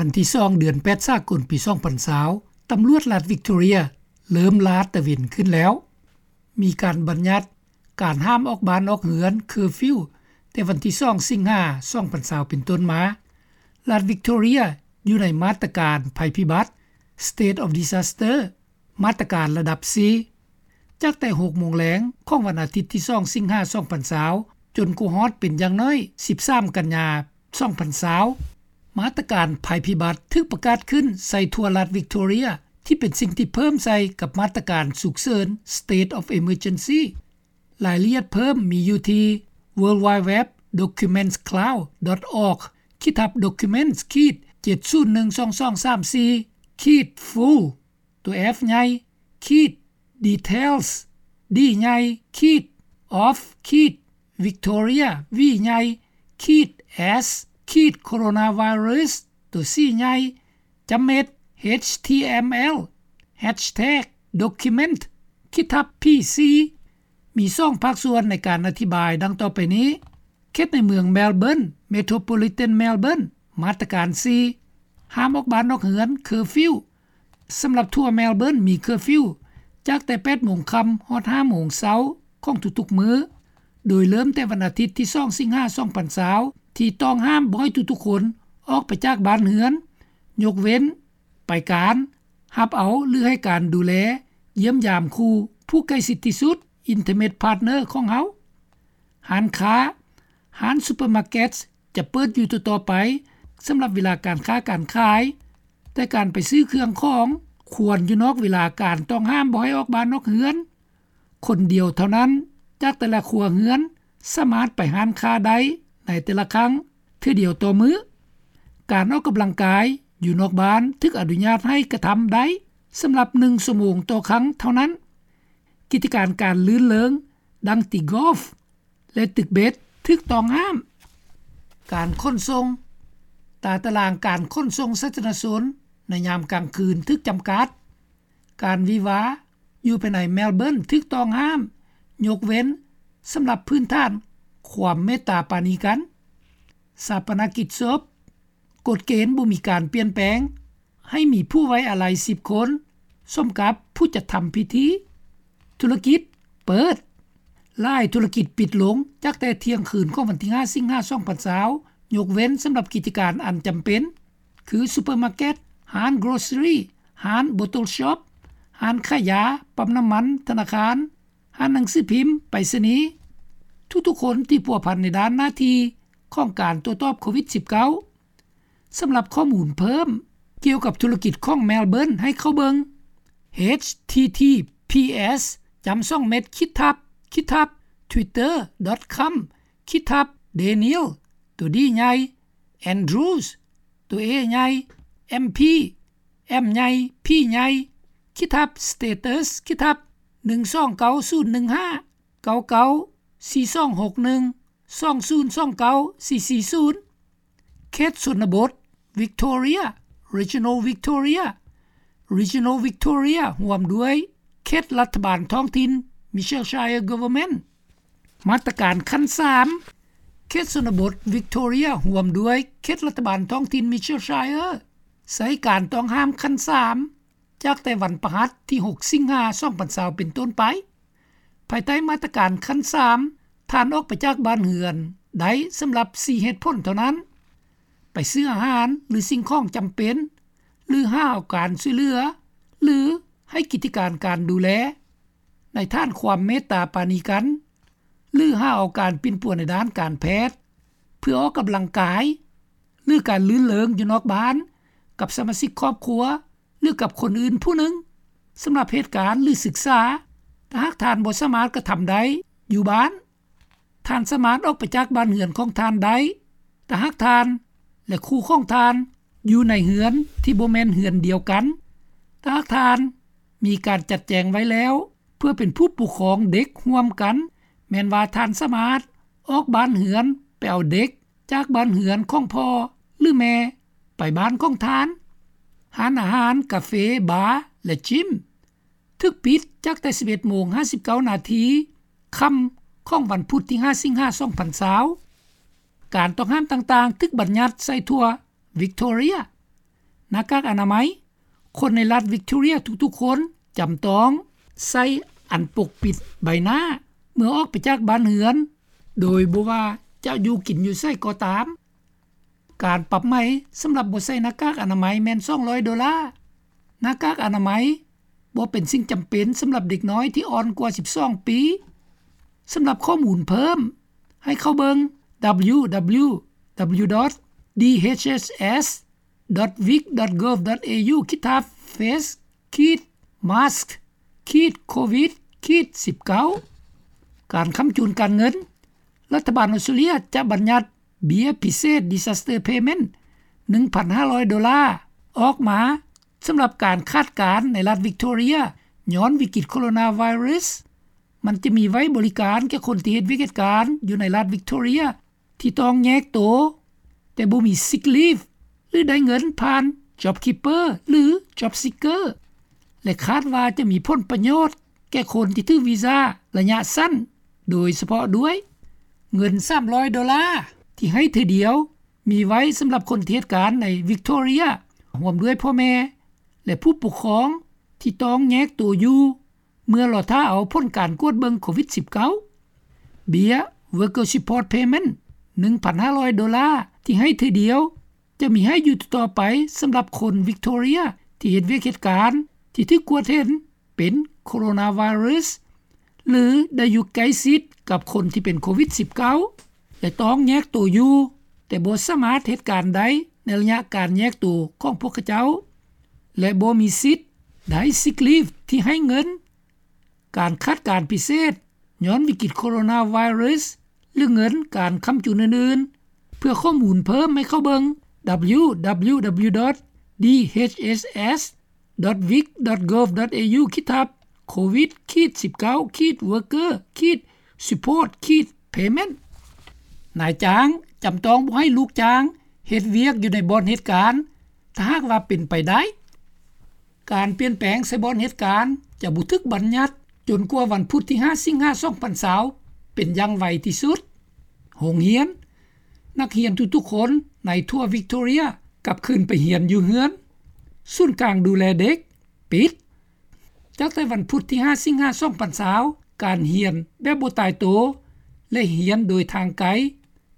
ວັນທີສອງ ເດືອນແປດສາກົນ ປີສອງພັນຊາວ ຕຳຫຼວດລັດວິກຕໍເຣຍເລີ່ມລາດຕະເວນຂຶ້ນແລ້ວ. ມີການບັນຍັດການຫ້າມອອກບ້ານອອກເຮືອນ ເຄີຟິວ ແຕ່ວັນທີສອງ ສິງຫາ ສອງພັນຊາວ ເປັນຕົ້ນມາ. ລັດວິກຕໍເຣຍຢູ່ໃນມາດຕະການໄພພິບັດ State of Disaster ມາດຕະການລະດັບສີ່ ຈາກແຕ່ຫົກໂມງແລງຂອງວັນອາທິດທີສອງ ສິງຫາ ສອງພັນຊາວ ຈົນກວ່າຮອດເປັນຢ່າງໜ້ອຍສິບສາມ ກັນຍາ ສອງພັນຊາວ. ມາດຕະການໄພພິບັດຖືກປະກາດຂຶ້ນໃສ່ທົ່ວລັດວິກຕໍເຣຍ ທີ່ເປັນສິ່ງທີ່ເພີ່ມໃສ່ກັບມາດຕະການສຸກເສີນ State of Emergency. ລາຍລະອຽດເພີ່ມມີຢູ່ທີ່ world wide web documents cloud dot org ຂີດທັບ documents ຂີດ ເຈັດສູນໜຶ່ງສອງສອງສາມສີ່ ຂີດ full ຕົວ F ໃຫຍ່ ຂີດ details D ໃຫຍ່ ຂີດ of ຂີດ Victoria V ໃຫຍ່ ຂີດ as ຂີດ coronavirus ຕົວ C ໃຫຍ່ ຈຳເມັດ H T M L hashtag document ຂີດທັບ P C. ມີສອງພາກສ່ວນໃນການອະທິບາຍດັ່ງຕໍ່ໄປນີ້. ເຂດໃນເມືອງ Melbourne Metropolitan Melbourne ມາດຕະການສີ່ ຫ້າມອອກບ້ານນອກເຮືອນ ເຄີຟິວ. ສຳລັບທົ່ວ Melbourne ມີເຄີຟິວຈາກແຕ່ແປດໂມງຄ່ຳຮອດຫ້າໂມງເຊົ້າຂອງທຸກໆມື້ ໂດຍເລີ່ມແຕ່ວັນອາທິດທີສອງ ສິງຫາ ສອງພັນຊາວ ທີ່ຕ້ອງຫ້າມບໍ່ໃຫ້ທຸກໆຄົນອອກໄປຈາກບ້ານເຮືອນ ຍົກເວັ້ນໄປການ ຮັບເອົາ ຫຼື ໃຫ້ການດູແລຢ້ຽມຢາມຄູ່ຜູ້ໃກ້ຊິດທີ່ສຸດ intimate partner ຂອງເຮົາ. ຮ້ານຄ້າ, ຮ້ານ supermarkets ຈະເປີດຢູ່ຕໍ່ໆໄປສຳລັບເວລາການຄ້າການຂາຍ, ແຕ່ການໄປຊື້ເຄື່ອງຂອງຄວນຢູ່ນອກເວລາການຕ້ອງຫ້າມບໍ່ໃຫ້ອອກບ້ານນອກເຮືອນ. ຄົນດຽວເທົ່ານັ້ນຈາກແຕ່ລະຄົວເຮືອນສາມາດໄປຮ້ານຄ້າໄດ້ໃນແຕ່ລະຄັ້ງເທື່ອດຽວຕໍ່ມື້. ການອອກກຳລັງກາຍຢູ່ນອກບ້ານຖືກອະນຸຍາດໃຫ້ກະທຳໄດ້ສຳລັບໜຶ່ງຊົ່ວໂມງຕໍ່ຄັ້ງເທົ່ານັ້ນ. ກິດຈະການການລື່ນເລີງ ດັ່ງຕີກອຟ ແລະ ຕຶກເບັດ ຖືກຕ້ອງຫ້າມ. ການຂົນສົ່ງ. ຕາຕະລາງການຂົນສົ່ງສາທາລະນະຊົນໃນຍາມກາງຄືນຖືກຈຳກັດ. ການວິວາຢູ່ພາຍໃນ Melbourne ຖືກຕ້ອງຫ້າມ ຍົກເວັ້ນສຳລັບພື້ນຖານຄວາມເມດຕາປານີກັນ. ຊາປະນະກິດສົບ. ກົດເກນບໍ່ມີການປ່ຽນແປງ ໃຫ້ມີຜູ້ໄວ້ອາໄລສິບຄົນ ສົມກັບຜູ້ຈັດທຳພິທີ. ທຸລະກິດເປີດ. ຫຼາຍທຸລະກິດປິດລົງຈາກແຕ່ທ່ຽງຄືນຂອງວັນທີຫ້າ ສິງຫາ ສອງພັນຊາວ ຍົກເວັ້ນສຳລັບກິດຈະການອັນຈຳເປັນ ຄື supermarket, ຮ້ານ grocery, ຮ້ານ bottle shop, ຮ້ານຂາຍຢາ, ປ້ຳນ້ຳມັນ, ທະນາຄານ, ຮ້ານໜັງສືພິມ, ໄປສະນີ. ທຸກໆຄົນທີ່ພົວພັນໃນດ້ານໜ້າທີ່ຂອງການຕົວຈອບໂຄວິດສິບເກົ້າ. ສຳລັບຂໍ້ມູນເພີ່ມກ່ຽວກັບທຸລະກິດຂອງ Melbourne ໃຫ້ເຂົ້າເບິ່ງ H T T P S ຈຳສອງເມັດ ຂີດທັບ ຂີດທັບ twitter dot com ຂີດທັບ Daniel ຕົວ D ໃຫຍ່ Andrews ຕົວ A ໃຫຍ່ M P M ໃຫຍ່ P ໃຫຍ່ ຂີດທັບ status ຂີດທັບ ໜຶ່ງສອງເກົ້າສູນໜຶ່ງຫ້າ ເກົ້າເກົ້າສີ່ສອງຫົກໜຶ່ງ ສອງສູນສອງເກົ້າສີ່ສີ່ສູນ. ເຂດຊົນນະບົດ Victoria Regional Victoria Regional Victoria ຮ່ວມດ້ວຍເຂດລັດຖະບານທ້ອງຖິ່ນ Mitchellshire Government. ມາດຕະການຂັ້ນສາມ. ເຂດຊົນນະບົດ Victoria ຮ່ວມດ້ວຍເຂດລັດຖະບານທ້ອງຖິ່ນ Mitchellshire ໃຊ້ການຕ້ອງຫ້າມຂັ້ນສາມ ຈາກແຕ່ວັນພະຫັດທີຫົກ ສິງຫາ ສອງພັນຊາວ ເປັນຕົ້ນໄປ. ພາຍໃຕ້ມາດຕະການຂັ້ນສາມ ທ່ານອອກໄປຈາກບ້ານເຮືອນໄດ້ສຳລັບສີ່ເຫດຜົນເທົ່ານັ້ນ: ໄປຊື້ອາຫານ ຫຼື ສິ່ງຂອງຈຳເປັນ ຫຼື ຫາເອົາການຊ່ວຍເຫຼືອ ຫຼື ໃຫ້ກິດຈະການການດູແລໃນຖານຄວາມເມດຕາປານີກັນ ຫຼື ຫາເອົາການປິ່ນປົວໃນດ້ານການແພດ ເພື່ອອອກກຳລັງກາຍ ຫຼື ການລື່ນເລີງຢູ່ນອກບ້ານກັບສະມາຊິກຄອບຄົວ ຫຼື ກັບຄົນອື່ນຜູ້ໜຶ່ງ ສຳລັບເຫດການ ຫຼື ສຶກສາ. ຖ້າຫາກທ່ານບໍ່ສາມາດກະທຳໄດ້ຢູ່ບ້ານ, ທ່ານສາມາດອອກໄປຈາກບ້ານເຮືອນຂອງທ່ານໄດ້ ຖ້າຫາກທ່ານ ແລະ ຄູ່ຂອງທ່ານຢູ່ໃນເຮືອນທີ່ບໍ່ແມ່ນເຮືອນດຽວກັນ, ຖ້າຫາກທ່ານມີການຈັດແຈງໄວ້ແລ້ວເພື່ອເປັນຜູ້ປົກຄອງເດັກຮ່ວມກັນ, ແມ່ນວ່າທ່ານສາມາດອອກບ້ານເຮືອນໄປເອົາເດັກຈາກບ້ານເຮືອນຂອງພໍ່ ຫຼື ແມ່ໄປບ້ານຂອງທ່ານ. ຮ້ານອາຫານ, ກາເຟ, ບາ ແລະ ຈິມ ຖືກປິດຈາກແຕ່ສິບເອັດໂມງຫ້າສິບເກົ້ານາທີຄ່ຳຂອງວັນພຸດທີຫ້າ ສິງຫາ ສອງພັນຊາວ. ການຕ້ອງຫ້າມຕ່າງໆຖືກບັນຍັດໃສ່ທົ່ວ Victoria. ໜ້າກາກອະນາໄມ, ຄົນໃນລັດວິກຕໍເຣັຍທຸກໆຄົນຈຳຕ້ອງໃສ່ອັນປົກປິດໃບໜ້າເມື່ອອອກໄປຈາກບ້ານເຮືອນ, ໂດຍບໍ່ວ່າຈະຢູ່ກິນຢູ່ໃສກໍຕາມ. ການປັບໃໝສຳລັບບໍ່ໃສ່ໜ້າກາກອະນາໄມແມ່ນສອງຮ້ອຍໂດລາ. ໜ້າກາກອະນາໄມບໍ່ເປັນສິ່ງຈຳເປັນສຳລັບເດັກນ້ອຍທີ່ອ່ອນກວ່າສິບສອງປີ. ສຳລັບຂໍ້ມູນເພີ່ມ, ໃຫ້ເຂົ້າເບິ່ງ www.dhss .vic.gov.au ຂີດທັບ face ຂີດ mask ຂີດ covid ຂີດ 19. ການຄ້ຳຈູນການເງິນ, ລັດຖະບານອົດສະຕຣາເລຍຈະບັນຍັດເບ້ຍພິເສດ disaster payment ໜຶ່ງພັນຫ້າຮ້ອຍໂດລາອອກມາ ສຳລັບການຂາດການໃນລັດວິກຕໍເຣັຍຍ້ອນວິກິດໂຄໂຣນາໄວຣັສ. ມັນຈະມີໄວ້ບໍລິການແກ່ຄົນທີ່ເຮັດວຽກເຮັດການຢູ່ໃນລັດວິກຕໍເຣັຍ ທີ່ຕ້ອງແຍກໂຕ ແຕ່ບໍ່ມີ sick leave ຫຼື ໄດ້ເງິນຜ່ານ JobKeeper ຫຼື JobSeeker ແລະ ຄາດວ່າຈະມີຜົນປະໂຫຍດແກ່ຄົນທີ່ຖືກວີຊາໄລຍະສັ້ນໂດຍສະເພາະດ້ວຍ. ເງິນສາມຮ້ອຍໂດລາທີ່ໃຫ້ເທື່ອດຽວ ມີໄວ້ສຳລັບຄົນທີ່ເຮັດການໃນວິກຕໍເຣັຍ ຮ່ວມດ້ວຍພໍ່ແມ່ ແລະ ຜູ້ປົກຄອງທີ່ຕ້ອງແຍກໂຕຢູ່ ເມື່ອລໍຖ້າເອົາຜົນການກວດເບິ່ງໂຄວິດ-19. ເບ້ຍ Worker Support Payment ໜຶ່ງພັນຫ້າຮ້ອຍໂດລາທີ່ໃຫ້ເທື່ອດຽວ ຈະມີໃຫ້ຢູ່ຕໍ່ໆໄປສຳລັບຄົນວິກຕໍເຣັຍທີ່ເຮັດວຽກເຮັດການທີ່ຖືກກວດເຫັນເປັນໂຄໂຣນາໄວຣັສ ຫຼື ໄດ້ຢູ່ໃກ້ຊິດກັບຄົນທີ່ເປັນໂຄວິດ-19 ແລະ ຕ້ອງແຍກໂຕຢູ່ ແຕ່ບໍ່ສາມາດເຮັດການໄດ້ໃນໄລຍະການແຍກໂຕຂອງພວກເຂົາເຈົ້າ ແລະ ບໍ່ມີສິດໄດ້ sick leave ທີ່ໃຫ້ເງິນ. ການຂາດການພິເສດຍ້ອນວິກິດໂຄໂຣນາໄວຣັສ ຫຼື ເງິນການຄ້ຳຈູນອື່ນໆ. ເພື່ອຂໍ້ມູນເພີ່ມໃຫ້ເຂົ້າເບິ່ງ www.dhss.vic.gov.au ຂີດທັບ covid-19-worker-support-payment. ນາຍຈ້າງຈຳຕ້ອງບໍ່ໃຫ້ລູກຈ້າງເຮັດວຽກຢູ່ໃນບ່ອນເຮັດການ ຖ້າຫາກວ່າເປັນໄປໄດ້. ການປ່ຽນແປງໃສ່ບ່ອນເຮັດການຈະບໍ່ຖືກບັນຍັດຈົນກວ່າວັນພຸດທີຫ້າ ສິງຫາ ສອງພັນຊາວ ເປັນຢ່າງໄວທີ່ສຸດ. ໂຮງຮຽນ, ນັກຮຽນທຸກໆຄົນໃນທົ່ວວິກຕໍເຣັຍກັບຄືນໄປຮຽນຢູ່ເຮືອນ. ສູນກາງດູແລເດັກປິດ. ຕັ້ງແຕ່ວັນພຸດທີຫ້າ ສິງຫາ ສອງພັນຊາວ ການຮຽນແບບບໍ່ຕາຍໂຕ ແລະ ຮຽນໂດຍທາງໄກ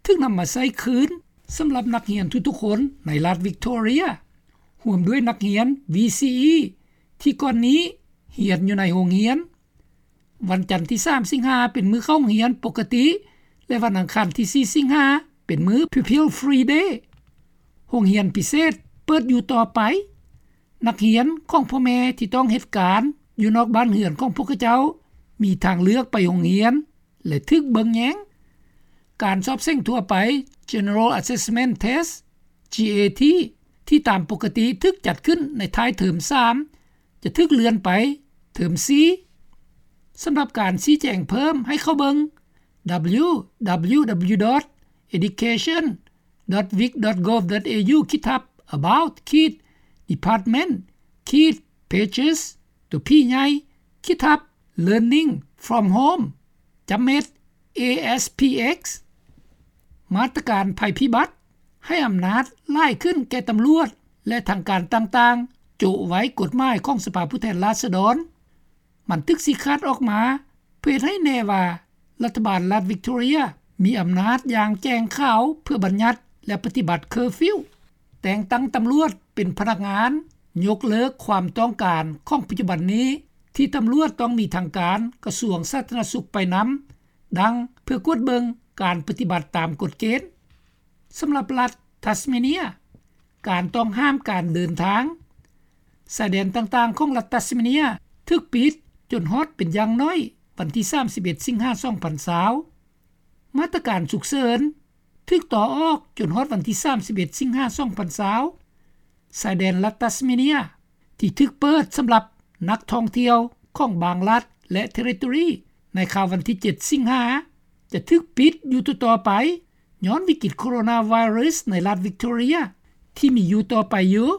ຖືກນຳມາໃຊ້ຄືນສຳລັບນັກຮຽນທຸກໆຄົນໃນລັດວິກຕໍເຣັຍ ຮ່ວມດ້ວຍນັກຮຽນ VCE ທີ່ກ່ອນນີ້ຮຽນຢູ່ໃນໂຮງຮຽນ. ວັນຈັນທີສາມ ສິງຫາ ເປັນມື້ເຂົ້າໂຮງຮຽນປົກກະຕິ ແລະ ວັນອັງຄານທີສີ່ ສິງຫາ ເປັນມື້ Pupil Free Day. ໂຮງຮຽນພິເສດເປີດຢູ່ຕໍ່ໄປ. ນັກຮຽນຂອງພໍ່ແມ່ທີ່ຕ້ອງເຮັດການຢູ່ນອກບ້ານເຮືອນຂອງພວກເຂົາເຈົ້າ ມີທາງເລືອກໄປໂຮງຮຽນ ແລະ ຖືກເບິ່ງແຍງ. ການສອບເສັງທົ່ວໄປ General Assessment Test GAT ທີ່ຕາມປົກກະຕິຖືກຈັດຂຶ້ນໃນທ້າຍເທີມສາມ ຈະຖືກເລື່ອນໄປເທີມສີ່. ສຳລັບການຊີ້ແຈງເພີ່ມໃຫ້ເຂົ້າເບິ່ງ www.education.vic.gov.au ຂີດທັບ about ຂີດ department ຂີດ pages ຕົວ P ໃຫຍ່ ຂີດທັບ learning from home ຈຳເມັດ ASPX. ມາດຕະການໄພພິບັດໃຫ້ອຳນາດຫຼາຍຂຶ້ນແກ່ຕຳຫຼວດ ແລະ ທາງການຕ່າງໆ ໂຈະໄວ້ກົດໝາຍຂອງສະພາຜູ້ແທນລາຊະດອນ. ມັນຖືກຊີ້ຂາດອອກມາເພື່ອເຮັດໃຫ້ແນ່ວ່າ ລັດຖະບານລັດວິກຕໍເຣັຍມີອຳນາດຢ່າງແຈ້ງຂາວເພື່ອບັນຍັດ ແລະ ປະຕິບັດເຄີຟິວ, ແຕ່ງຕັ້ງຕຳຫຼວດເປັນພະນັກງານ, ຍົກເລີກຄວາມຕ້ອງການຂອງປັດຈຸບັນນີ້ ທີ່ຕຳຫຼວດຕ້ອງມີທາງການກະຊວງສາທາລະນະສຸກໄປນຳ ດັ່ງເພື່ອກວດເບິ່ງການປະຕິບັດຕາມກົດເກນ. ສຳລັບລັດທັສເມເນຍ, ການຕ້ອງຫ້າມການເດີນທາງ. ຊາຍແດນຕ່າງໆຂອງລັດທັສເມເນຍຖືກປິດຈົນຮອດເປັນຢ່າງໜ້ອຍວັນທີສາມສິບເອັດ ສິງຫາ ສອງພັນຊາວ. ມາດຕະການສຸກເສີນຖືກຕໍ່ອອກຈົນຮອດວັນທີສາມສິບເອັດ ສິງຫາ ສອງພັນຊາວ. ຊາຍແດນລັດທັສເມເນຍທີ່ຖືກເປີດສຳລັບນັກທ່ອງທ່ຽວຂອງບາງລັດ ແລະ ເທຣິໂຕຣີ ໃນຄາວວັນທີເຈັດ ສິງຫາ ຈະຖືກປິດຢູ່ຕໍ່ໆໄປ ຍ້ອນວິກິດໂຄໂຣນາໄວຣັສໃນລັດວິກຕໍເຣັຍທີ່ມີຢູ່ຕໍ່ໄປຢູ່.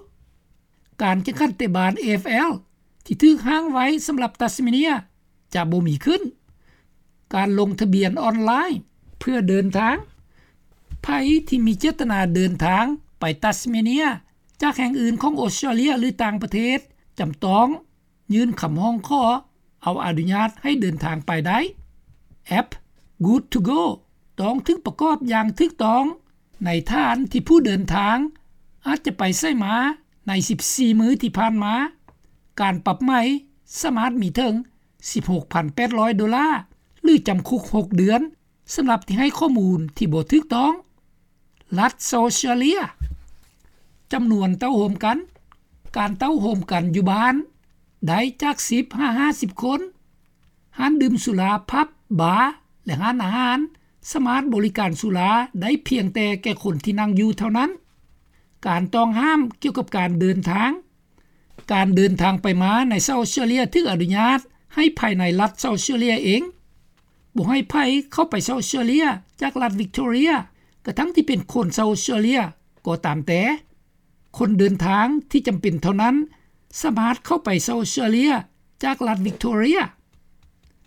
ການແຂ່ງຂັນເຕະບານ AFL ທີ່ຖືກຫ້າງໄວ້ສຳລັບທັສເມເນຍຈະບໍ່ມີຂຶ້ນ. ການລົງທະບຽນອອນລາຍເພື່ອເດີນທາງ. ໃຜທີ່ມີເຈດຕະນາເດີນທາງໄປທັສເມເນຍ ຈາກແຫ່ງອື່ນຂອງອອສເຕຣເລັຽ ຫຼື ຕ່າງປະເທດ ຈຳຕ້ອງຍື່ນຄຳຮ້ອງຂໍເອົາອະນຸຍາດໃຫ້ເດີນທາງໄປໄດ້. ແອັບ Good to Go ຕ້ອງຖືກປະກອບຢ່າງຖືກຕ້ອງ ໃນຖານທີ່ຜູ້ເດີນທາງອາດຈະໄປໃສມາໃນສິບສີ່ມື້ທີ່ຜ່ານມາ. ການປັບໃໝສາມາດມີເຖິງສິບຫົກພັນແປດຮ້ອຍໂດລາ ຫຼື ຈຳຄຸກຫົກເດືອນ ສຳລັບທີ່ໃຫ້ຂໍ້ມູນທີ່ບໍ່ຖືກຕ້ອງ. ລັດເຊົາເຊຍເລັຽ ຈຳນວນເຕົ້າໂຮມກັນ. ການເຕົ້າໂຮມກັນຢູ່ບ້ານໄດ້ຈາກສິບຫາຫ້າສິບຄົນ. ຮ້ານດື່ມສຸລາ, ຜັບ, ບາ ແລະ ຮ້ານອາຫານ ສາມາດບໍລິການສຸລາໄດ້ພຽງແຕ່ແກ່ຄົນທີ່ນັ່ງຢູ່ເທົ່ານັ້ນ. ການຕ້ອງຫ້າມກ່ຽວກັບການເດີນທາງ. ການເດີນທາງໄປມາໃນເຊົາເຊຍເລັຽຖືກອະນຸຍາດໃຫ້ພາຍໃນລັດເຊົາເຊຍເລັຽເອງ. ບໍ່ໃຫ້ໃຜເຂົ້າໄປເຊົາເຊຍເລັຽຈາກລັດວິກຕໍເຣຍ ກະທັ່ງທີ່ເປັນຄົນເຊົາເຊຍເລັຽກໍຕາມແຕ່. ຄົນເດີນທາງທີ່ຈຳເປັນເທົ່ານັ້ນສາມາດເຂົ້າໄປເຊົາເຊຍເລັຽຈາກລັດວິກຕໍເຣຍ.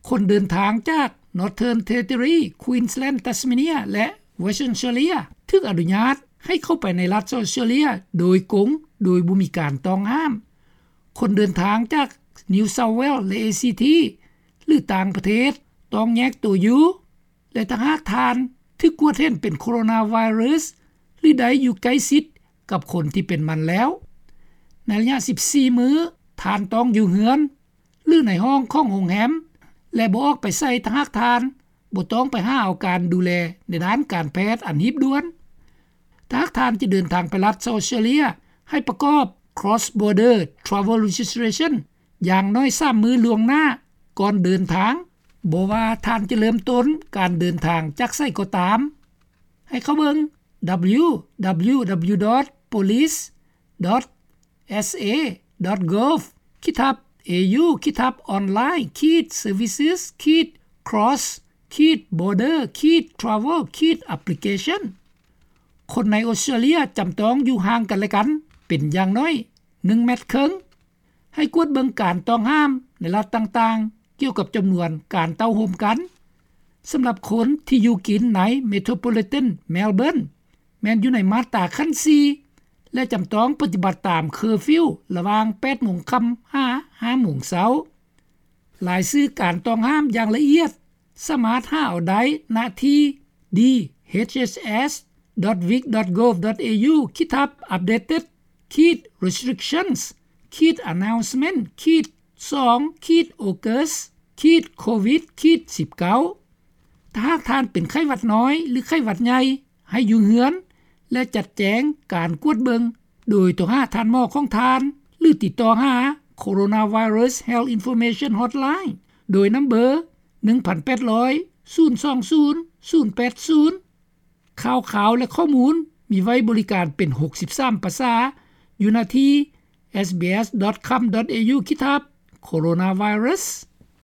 ຄົນເດີນທາງຈາກ Northern Territory, Queensland, Tasmania ແລະ Western Australia ຖືກອະນຸຍາດໃຫ້ເຂົ້າໄປໃນລັດເຊົາເຊຍເລັຽໂດຍກົງ ໂດຍບໍ່ມີການຕ້ອງຫ້າມ. ຄົນເດີນທາງຈາກ New South Wales ແລະ ເອຊີທີ ຫຼື ຕ່າງປະເທດ ຕ້ອງແຍກໂຕຢູ່ ແລະ ຖ້າຫາກທ່ານຖືກກວດເຫັນເປັນໂຄໂຣນາໄວຣັສ ຫຼື ໄດ້ຢູ່ໃກ້ຊິດກັບຄົນທີ່ເປັນມັນແລ້ວ ໃນໄລຍະສິບສີ່ມື້ ທ່ານຕ້ອງຢູ່ເຮືອນ ຫຼື ໃນຫ້ອງຂອງໂຮງແຮມ ແລະ ບໍ່ອອກໄປໃສ ຖ້າຫາກທ່ານບໍ່ຕ້ອງໄປຫາເອົາການດູແລໃນດ້ານການແພດອັນຮີບດ່ວນ. ຖ້າຫາກທ່ານຈະເດີນທາງໄປລັດເຊົາເຊຍເລັຽ ໃຫ້ປະກອບ Cross Border Travel Registration ຢ່າງໜ້ອຍສາມມື້ລ່ວງໜ້າກ່ອນເດີນທາງ. ບໍ່ວ່າທ່ານຈະເລີ່ມຕົ້ນການເດີນທາງຈາກໃສກໍຕາມ, ໃຫ້ເຂົ້າເບິ່ງ www.police.sa.gov ຂີດທັບ au ຂີດທັບ online ຂີດ services ຂີດ cross ຂີດ border ຂີດ travel ຂີດ application. ຄົນໃນອອສເຕຣເລັຽຈຳຕ້ອງຢູ່ຫ່າງກັນແລະກັນເປັນຢ່າງໜ້ອຍໜຶ່ງແມັດເຄິ່ງ. ໃຫ້ກວດເບິ່ງການຕ້ອງຫ້າມໃນລັດຕ່າງໆ ກ່ຽວກັບຈຳນວນການເຕົ້າໂຮມກັນ. ສຳລັບຄົນທີ່ຢູ່ກິນໃນ Metropolitan Melbourne ແມ່ນຢູ່ໃນມາດຕາຂັ້ນສີ່ ແລະ ຈຳຕ້ອງປະຕິບັດຕາມເຄີຟິວລະຫວ່າງແປດໂມງຄ່ຳຫາຫ້າໂມງເຊົ້າ. ລາຍຊື່ການຕ້ອງຫ້າມຢ່າງລະອຽດ ສາມາດຫາເອົາໄດ້ນະທີ່ d h s s dot vic dot gov dot a u ຂີດທັບ updated ຂີດ restrictions ຂີດ announcement ຂີດ ສອງ ຂີດ august ຂີດ covid ຂີດ ສິບເກົ້າ. ຖ້າຫາກທ່ານເປັນໄຂ້ຫວັດນ້ອຍ ຫຼື ໄຂ້ຫວັດໃຫຍ່ ໃຫ້ຢູ່ເຮືອນ ແລະ ຈັດແຈງການກວດເບິ່ງ ໂດຍໂທຫາທ່ານໝໍຂອງທ່ານ ຫຼື ຕິດຕໍ່ຫາ Coronavirus Health Information Hotline ໂດຍນຳເບີ ໜຶ່ງພັນແປດຮ້ອຍ ສູນສອງສູນ ສູນແປດສູນ. ຂ່າວຄາວ ແລະ ຂໍ້ມູນມີໄວ້ບໍລິການເປັນຫົກສິບສາມພາສາ ຢູ່ໜ້າທີ່ s b s dot com dot a u ຂີດທັບ coronavirus.